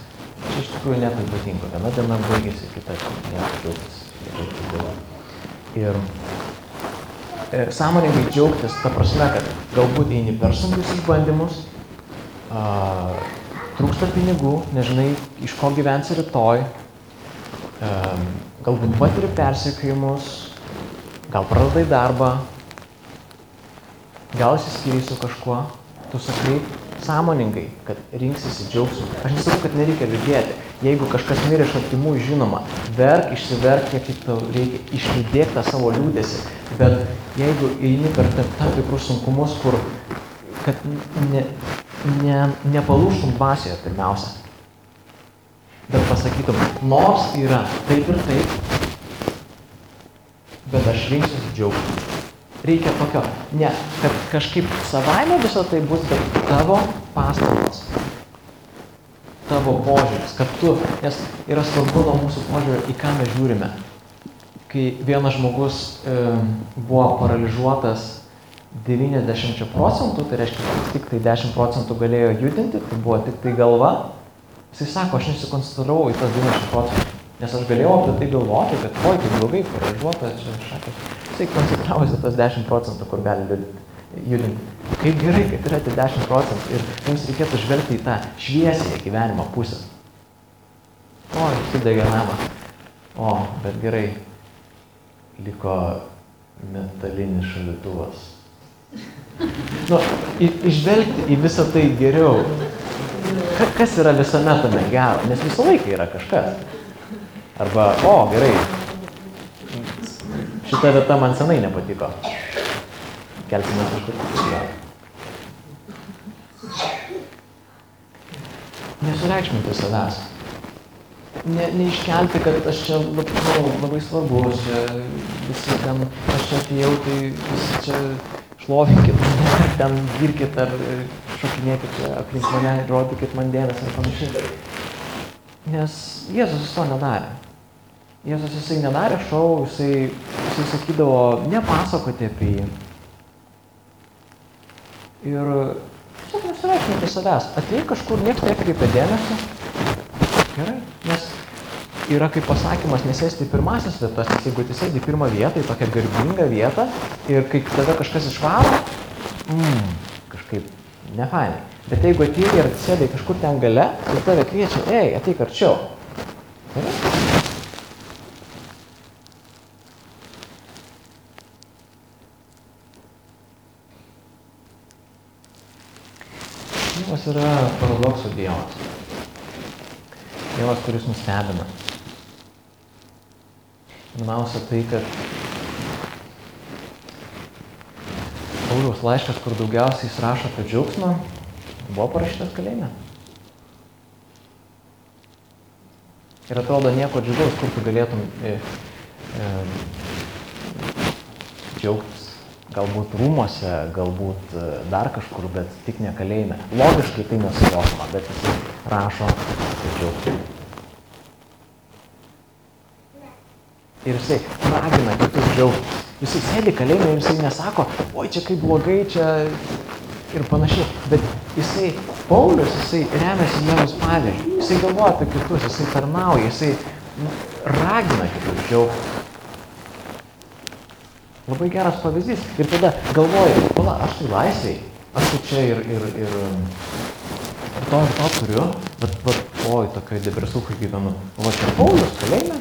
Čia iš tikrųjų nieko ypatingo. Viena diena baigėsi, kita nieko džiaugtis. Ir sąmoningai džiaugtis, ta prasme, kad galbūt eini per sunkius išbandymus, trūksta pinigų, nežinai, iš ko gyvensi rytoj, galbūt patiri persekiojimus, gal praradai darbą, gal išsiskyrei su kažkuo, tu sakai sąmoningai, kad rinksisi džiaugsmą. Aš nesakau, kad nereikia liūdėti. Jeigu kažkas mirė iš artimų, žinoma, verk, išsiverk, kiek tau reikia, išlydėk tą savo liūdėsi. Bet jeigu eini per tam tikrus sunkumus, kur kad nepalūžtum dvasioje pirmiausia, bet pasakytum, nors yra taip ir taip, bet aš rinksiuosi džiaugsmą. Reikia tokio, ne, kad kažkaip savaime viso tai bus, bet tavo pastangos, tavo požiūris, kad tu, nes yra svarbu nuo mūsų požiūrio, į ką mes žiūrime. Kai vienas žmogus buvo paralyžiuotas 90%, tai reiškia, kad tik tai 10% galėjo judinti, tai buvo tik tai galva, jisai sako, aš nesikoncentravau į tas 90%, nes aš galėjau apie tai galvoti, kad tai blogai, paralyžiuotas, šakės. Jisai koncentravosi tas 10%, kur gali judinti. Kaip gerai, kad yra tie 10% ir jums reikėtų žvelgti į tą šviesąją gyvenimo pusę. Įsidegė namą. Bet gerai, liko metalinis šaldytuvas. Išvelgti į visą tai geriau. Kas yra visame tame gero? Nes visą laiką yra kažkas. Arba, gerai, šita vieta man senai nepatiko. Kelsime kažkur kitur. nesureikšminti savęs. Neiškelti, kad aš čia labai svarbus, visi ten, aš čia atėjau, tai visi čia šlovinkit mane, ten girkit ar šokinėkit čia aplink mane, rodykit man dėmesį ar panašiai. Nes Jėzus to nedarė. Jėzus jisai nedarė šou, jisai sakydavo nepasakoti apie jį. Ir tiesiog nesureikšminti savęs. Atėjai kažkur, niekas nekreipia dėmesio. Gerai, nes yra kaip pasakymas nesėsti į pirmasis vietas, nes jeigu tu sėdi į pirmą vietą, į tokią garbingą vietą ir kai tave kažkas išvaro, kažkaip nefainai. Bet jeigu atėjai ir sėdai kažkur ten gale, tai tave kviečia, ateik arčiau. Gerai? Dievas yra paradoksų Dievas. Dievas, kuris nustebina. Pirmiausia tai, kad Pauliaus laiškas, kur daugiausiai jis rašo apie džiaugsmą, buvo parašytas kalėjime. Ir atrodo nieko džiugaus, kur tu galėtum džiaugtis. Galbūt rūmuose, galbūt dar kažkur, bet tik ne kalėjime. Logiškai tai nesuvokiama, bet jis rašo apie džiaugsmą. Ir jisai ragina kitus džiaugtis. Jisai sėdi kalėjime ir jisai nesako, oi čia kaip blogai, čia ir panašiai. Bet jisai, Paulius, jisai remiasi Jėzaus pavyzdžiu. Jisai galvoja apie kitus, jisai tarnauja, jisai ragina kitus džiaugtis. Labai geras pavyzdys. Ir tada galvoju, aš tai laisvėj, aš tai čia ir to turiu, bet oi, tokioj depresūkai gyvenu. O čia Paulius kalėjime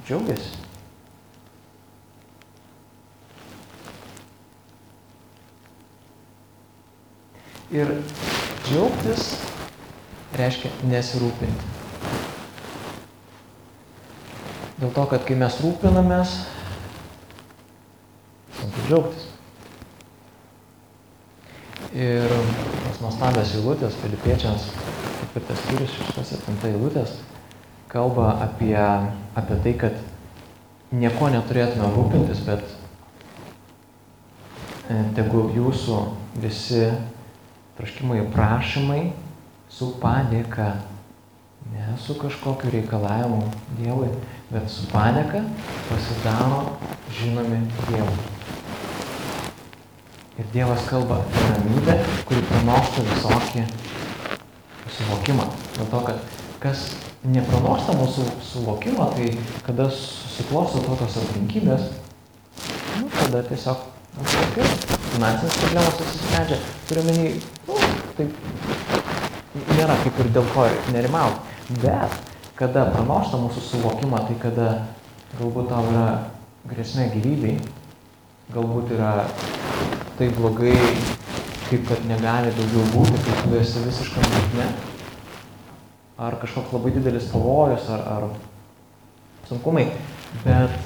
džiaugiasi. Ir džiaugtis reiškia nesirūpinti. Dėl to, kad kai mes rūpinamės, sunku džiaugtis. Ir tos nuostabios eilutės, Filipiečiams 4 skyrius 6-7 eilutės, kalba apie tai, kad nieko neturėtume rūpintis, bet tegu jūsų visi troškimai ir prašymai su padėka, ne su kažkokiu reikalavimu Dievui, bet su padėka pasidaro žinomi Dievui. Ir Dievas kalba apie ramybę, kuri pranoksta visokį suvokimą. Dėl to, kad kas nepranoksta mūsų suvokimo, tai kada susiklosto tokios aplinkybės, tada tiesiog finansinės problemos atsisprendžia. Turiu menį, tai nėra kaip ir dėl ko nerimauti. Bet kada pranoksta mūsų suvokimą, tai kada galbūt tau yra grėsmė gyvybei, galbūt yra tai blogai, kaip kad negali daugiau būti, kai tu esi visiškam dugne, ar kažkoks labai didelis pavojus, ar sunkumai, bet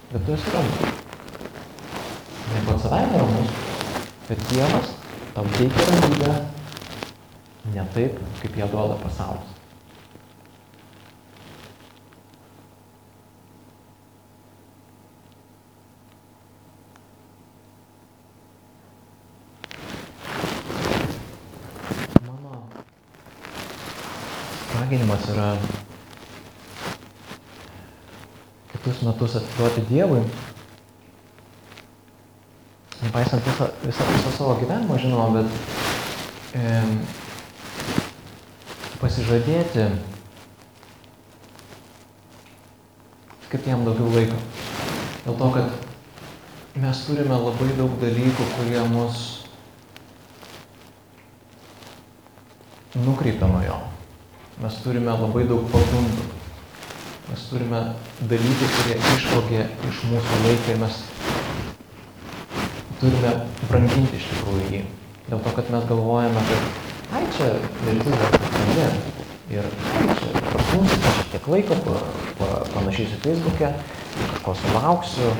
tu esi ramus. Ne pats savaime ramus, bet Dievas tau teikia ramybę ne taip, kaip ją duoda pasaulis. Raginimas yra kitus metus atiduoti Dievui, nepaisant visą savo gyvenimą, žinoma, bet pasižadėti skirti jam daugiau laiko. Dėl to, kad mes turime labai daug dalykų, kurie mus nukreipia nuo jo. Mes turime labai daug pagundų. Mes turime dalykų, kurie išvogė iš mūsų laiką ir mes turime branginti iš tikrųjų jį. Dėl to, kad mes galvojame, kad čia viltis dar kažkandien. Ir čia prasmūsiu, šiek tiek laiko, panašysiu Facebook'e, kažko sulauksiu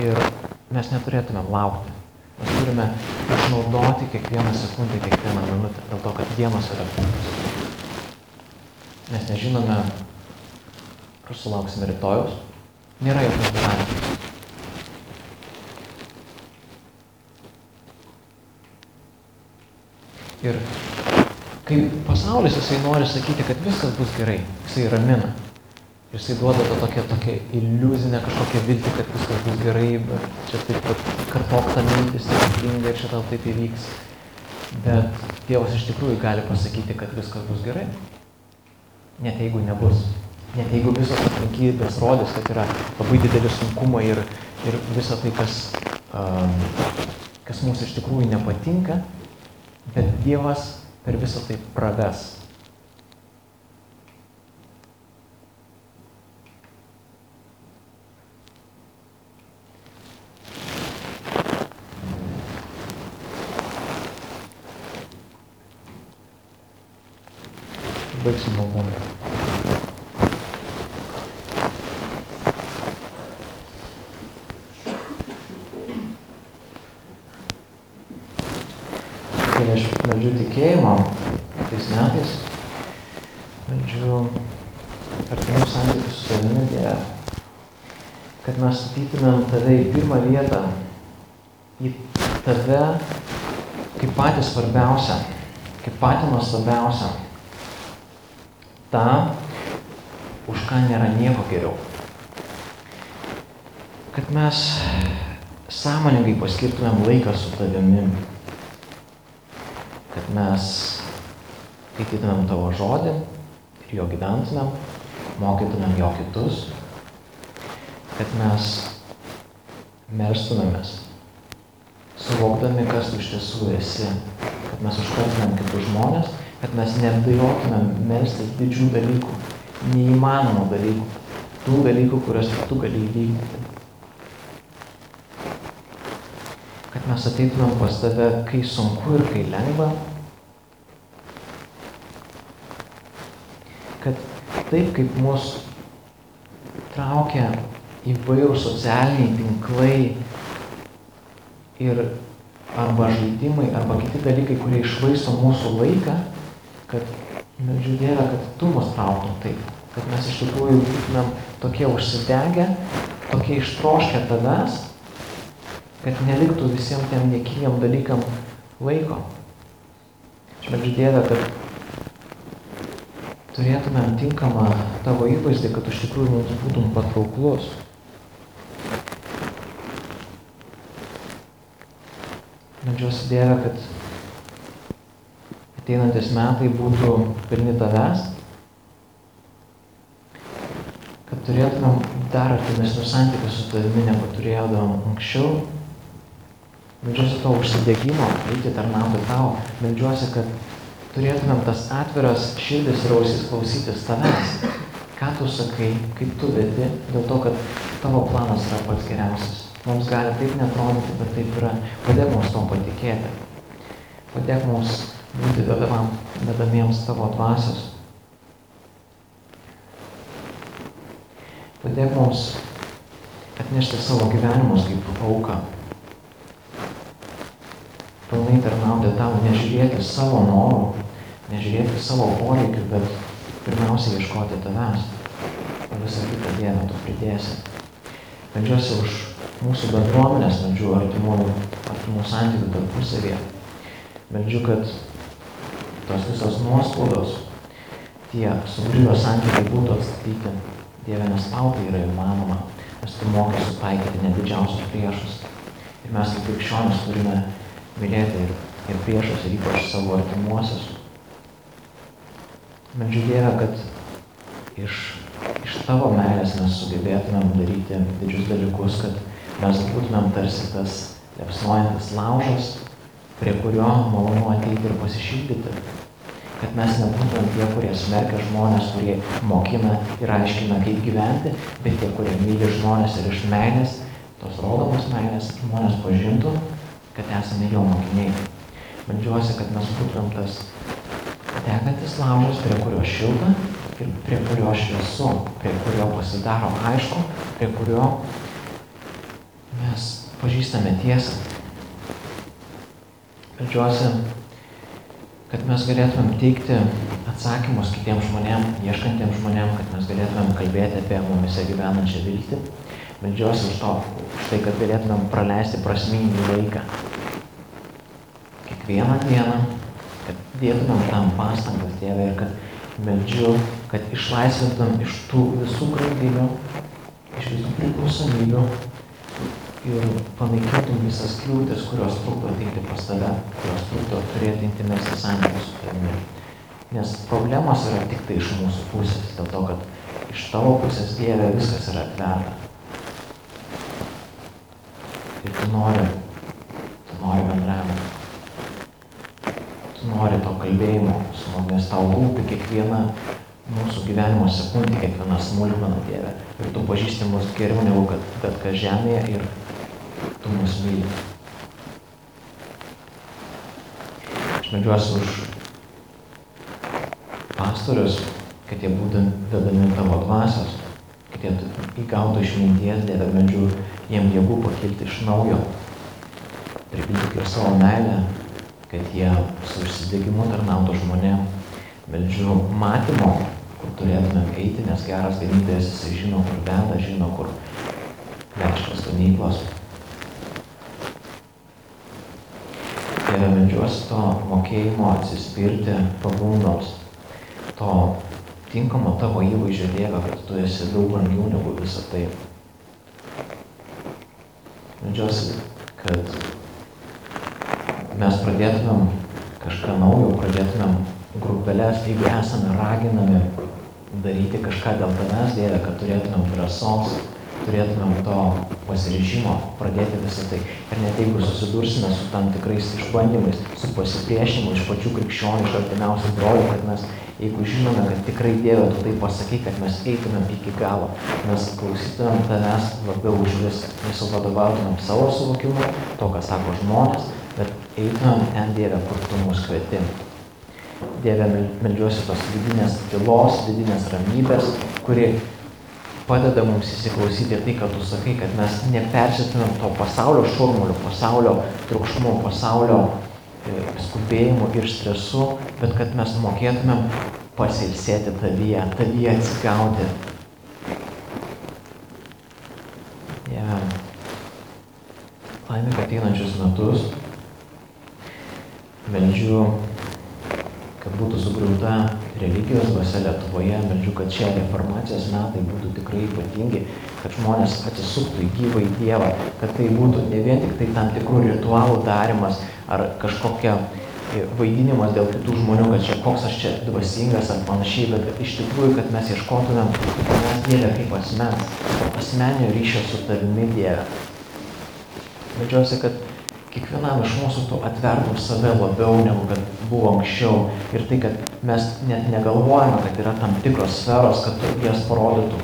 ir mes neturėtumėm laukti. Mes turime išnaudoti kiekvieną sekundę, kiekvieną minutę, dėl to, kad dienos yra trumpas. Mes nežinome, ar sulauksime rytojaus, nėra jokios garantijos. Ir kai pasaulis, jisai nori sakyti, kad viskas bus gerai, jisai ramina. Jisai duoda tą tokią iliuzinę kažkokią viltį, kad viskas bus gerai, bet čia taip pat kartok tą mintį stebuklingai ir čia tau taip įvyks. Bet Dievas iš tikrųjų gali pasakyti, kad viskas bus gerai. Net jeigu nebus. Net jeigu visos aplinkybės rodys, kad yra labai dideli sunkumai ir visa tai, kas mums iš tikrųjų nepatinka, bet Dievas per visą tai praves. Baigsim maldą. Kai aš meldžiu tikėjimo tais metais, meldžiu artimų santykių su tavimi, Dieve, kad mes statytumėm tave į pirmą vietą, į tave kaip patį svarbiausią, kaip patį nuostabiausią, tą, už ką nėra nieko geriau. Kad mes sąmoningai paskirtumėm laiką su tavimi, kad mes skaitytumėm tavo žodį ir jo gyventumėm, mokytumėm jo kitus, kad mes melstumėmės, suvokdami, kas tu iš tiesų esi, kad mes užkartumėm kitus žmonės, kad mes nebijotumėm melstis didžių dalykų, neįmanomų dalykų, tų dalykų, kuriuos tu gali įvykdyti. Kad mes ateitumėm pas tave, kai sunku ir kai lengva. Kad taip, kaip mus traukia įvairūs socialiniai tinklai ir arba žaidimai, arba kiti dalykai, kurie išvaisto mūsų laiką, kad meldžiu Dieve, kad tu mus trauktum taip, kad mes iš tikrųjų būtumėm tokie užsidegę, tokie ištroškę tavęs, kad neliktų visiems tiem niekiniam dalykam laiko. Aš meldžiu Dieve, kad turėtumėm tinkamą tavo įvaizdį, kad iš tikrųjų mums būtum patrauklus. Meldžiuosi Dieve, kad ateinantis metai būtų pilni tavęs, kad turėtumėm dar artimesnius santykius su tavimi, negu turėdavom anksčiau. Meldžiuosi to užsidegimo, eiti tarnauti tau. Meldžiuosi, kad turėtumėm tas atviras širdis ir ausis klausytis tavęs. Ką tu sakai, kaip tu vedi, dėl to, kad tavo planas yra pats geriausias. Mums gali taip netrodyti, bet taip yra. Padėk mums to patikėti. Padėk mums būti vedamiems tavo dvasios. Padėk mums atnešti savo gyvenimus kaip auką. Pilnai tarnauti tau, nežiūrėti savo norų, nežiūrėti savo poreikių, bet pirmiausia ieškoti tavęs. O visą kitą Dievą tu pridėsi. Meldžiuosi už mūsų bendruomenės, meldžiu artimų santykių tarpusavyje. Meldžiu, kad tos visos nuoskaudos, tie sugriuvę santykiai būtų atstatyti. Dieve, nes tau tai yra įmanoma, nes tu mokai sutaikyti net didžiausius priešus. Ir mes kaip krikščionys turime mylėti ir priešus, ir ypač savo artimuosius. Meldžiu Dieve, kad iš tavo meilės mes sugebėtumėm daryti didžius dalykus, kad mes būtumėm tarsi tas liepsnojantis laužas, prie kurio malonu ateiti ir pasišildyti. Kad mes nebūtumėm tie, kurie smerkia žmonės, kurie mokina ir aiškina, kaip gyventi, bet tie, kurie myli žmonės ir iš meilės, tos rodomos meilės, žmonės pažintų, kad esame jo mokiniai. Meldžiuosi, kad mes būtumėm tas degantis laužas, prie kurio šilta ir prie kurio šviesu, prie kurio pasidaro aišku, prie kurio mes pažįstame tiesą. Meldžiuosi, kad mes galėtumėm teikti atsakymus kitiems žmonėms, ieškantiems žmonėms, kad mes galėtumėm kalbėti apie mumise gyvenančią viltį. Meldžiuosi už tai, kad galėtumėm praleisti prasmingį laiką. Kiekvieną dieną, kad dėtumėm tam pastangas, Dieve, ir kad meldžiu, kad išlaisvintum iš tų visų grandinių, iš visų priklausomybių ir panaikintum visas kliūtis, kurios trukdo ateiti pas tave, kurios trukdo turėti intimesnį santykį su tavimi. Nes problemos yra tik tai iš mūsų pusės, dėl to, kad iš tavo pusės, Dieve, viskas yra atverta. Ir tu nori bendravimo. Tu nori to kalbėjimo su mumis, tau rūpi kiekviena mūsų gyvenimo sekundė, kiekviena smulkmena, Dieve. Ir tu pažįsti mus geriau negu bet kas žemėje ir tu mus myli. Aš meldžiuosi už pastorius, kad jie būtų vedami tavo dvasios, kad jie įgautų išminties, Dieve, meldžiu jiem jėgų pakilti iš naujo, pripildyti ir savo meilę, kad jie su užsidegimu tarnautų žmonėm. Meldžiu matymo, kur turėtumėm eiti, nes geras ganytojas, jisai žino, kur veda, žino, kur vežtos ganyklos. Dieve, meldžiuosi to mokėjimo atsispirti pagundoms, to tinkamo tavo įvaizdžio, Dieve, kad tu esi daug brangiau negu visą tai. Meldžiuosi, kad mes pradėtumėm kažką naujo, pradėtumėm grupelės, jeigu esame raginami daryti kažką dėl tavęs, Dieve, kad turėtumėm drąsos, turėtumėm to pasiryžimo pradėti visą tai. Ir net jeigu susidursime su tam tikrais išbandymais, su pasipriešinimu iš pačių krikščionių, iš artimiausių brolių, kad mes, jeigu žinome, kad tikrai, Dieve, tu tai pasakai, kad mes eitumėm iki galo, mes klausytumėm tavęs labiau už viską, nesivadovautumėm savo suvokimu, to, ką sako žmonės, bet eitumėm ten, Dieve, kur tu mus kvieti. Dieve, meldžiuosi tos vidinės tylos, vidinės ramybės, kuri padeda mums įsiklausyti tai, kad tu sakai, kad mes nepersėtumėm to pasaulio šurmulio, pasaulio triukšmų, pasaulio skubėjimų ir stresu, bet kad mes mokėtumėm pasilsėti tavyje atsigauti. Dieve, laimėk ateinančius metus, meldžiu, kad būtų sugriauta religijos dvasia Lietuvoje, meldžiu, kad šie reformacijos metai būtų tikrai ypatingi, kad žmonės atsisuktų į gyvąjį Dievą, kad tai būtų ne vien tik tai tam tikrų ritualų darimas ar kažkokia vaidinimas dėl kitų žmonių, kad čia koks aš čia dvasingas ar panašiai, bet iš tikrųjų, kad mes ieškotumėm tavęs, Dieve, kaip asmeninio ryšio su tavimi, Dieve. Meldžiuosi, kad kiekvienam iš mūsų tu atvertum save labiau, negu kad buvo anksčiau. Ir tai, kad mes net negalvojame, kad yra tam tikros sferos, kad tu jas parodytum.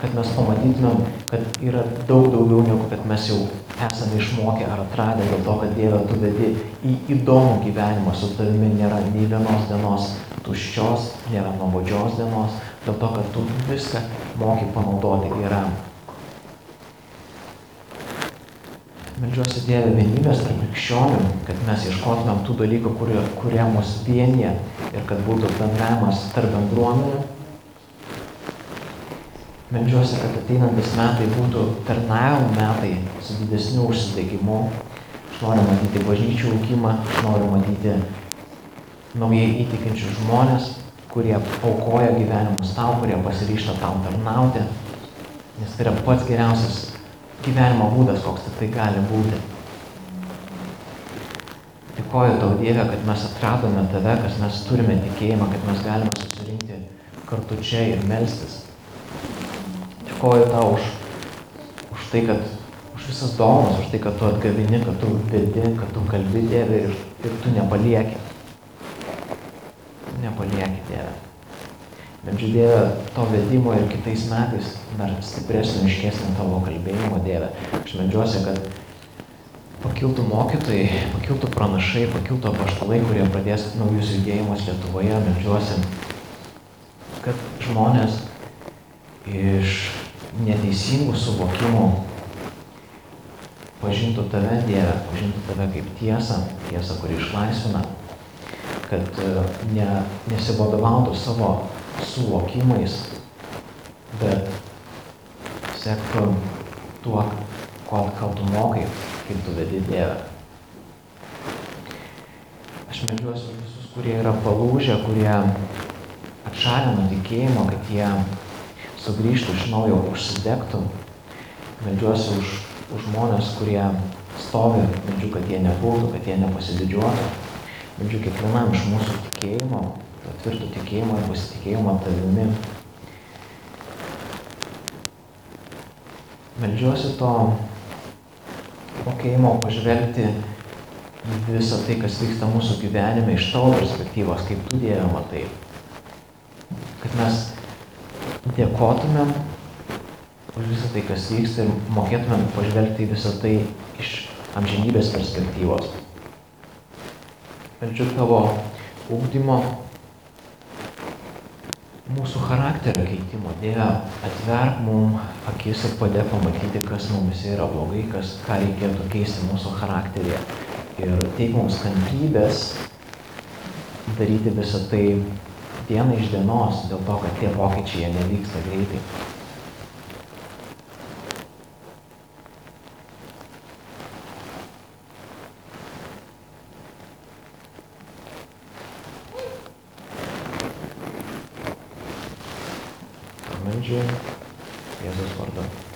Kad mes pamatytumėm, kad yra daug daugiau, negu kad mes jau esame išmokę ar atradę, dėl to, kad Dieve, tu vedi į įdomų gyvenimą. Su tavimi nėra nei vienos dienos tuščios, nėra nuobodžios dienos, dėl to, kad tu viską moki panaudoti geram. Meldžiuosi, Dieve, vienybės tarp krikščionių, kad mes ieškotumėm tų dalykų, kurie mus vienyje ir kad būtų bendravimas tarp bendruomenių. Meldžiuosi, kad ateinantis metai būtų tarnavimo metai su didesniu užsidegimu. Aš noriu matyti bažnyčių augimą, aš noriu matyti naujai įtikinčius žmonės, kurie aukoja gyvenimus tau, kurie pasiryžta tau tarnauti, nes tai yra pats geriausias gyvenimo būdas, koks tai gali būti. Dėkoju tau, Dieve, kad mes atradome tave, kad mes turime tikėjimą, kad mes galime susirinkti kartu čia ir melstis. Dėkoju tau už tai, kad už visas dovanas, už tai, kad tu atgavini, kad tu vedi, kad tu kalbi, Dieve, ir tu nepalieki. Nepalieki, Dieve. Meldžiu, Dieve, to vedimo ir kitais metais dar stipresnio, aiškesnio tavo kalbėjimo, Dieve. Aš meldžiuosi, kad pakiltų mokytojai, pakiltų pranašai, pakiltų apaštalai, kurie pradės naujus judėjimus Lietuvoje. Meldžiuosi, kad žmonės iš neteisingų suvokimų pažintų tave, Dieve, pažintų tave kaip tiesą, tiesą, kuri išlaisvina, kad nesivadovautų savo suvokimais, bet sektų tuo, ko tu mokai, kaip tu vedi, Dieve. Aš meldžiuosi visus, kurie yra palūžę, kurie atšalę nuo tikėjimo, kad jie sugrįžtų iš naujo, užsidegtų. Meldžiuosi už žmonės, kurie stovi, meldžiu, kad jie nepultų, kad jie nepasididžiuotų. Meldžiu kiekvienam iš mūsų tikėjimo, to tvirto tikėjimo ir pasitikėjimo tavimi. Meldžiuosi to mokėjimo pažvelgti į visą tai, kas vyksta mūsų gyvenime iš tavo perspektyvos, kaip tu, Dieve, matai. Kad mes dėkotumėm už visą tai, kas vyksta ir mokėtumėm pažvelgti į visą tai iš amžinybės perspektyvos. Meldžiu tavo ugdymo, mūsų charakterio keitimo. Dieve, atverk mum akis ir padėk pamatyti, kas mumise yra blogai, ką reikėtų keisti mūsų charakteryje. Ir teik mums kantrybės daryti visą tai dieną iš dienos, dėl to, kad tie pokyčiai jie nevyksta greitai. Meldžiu Jėzaus vardu.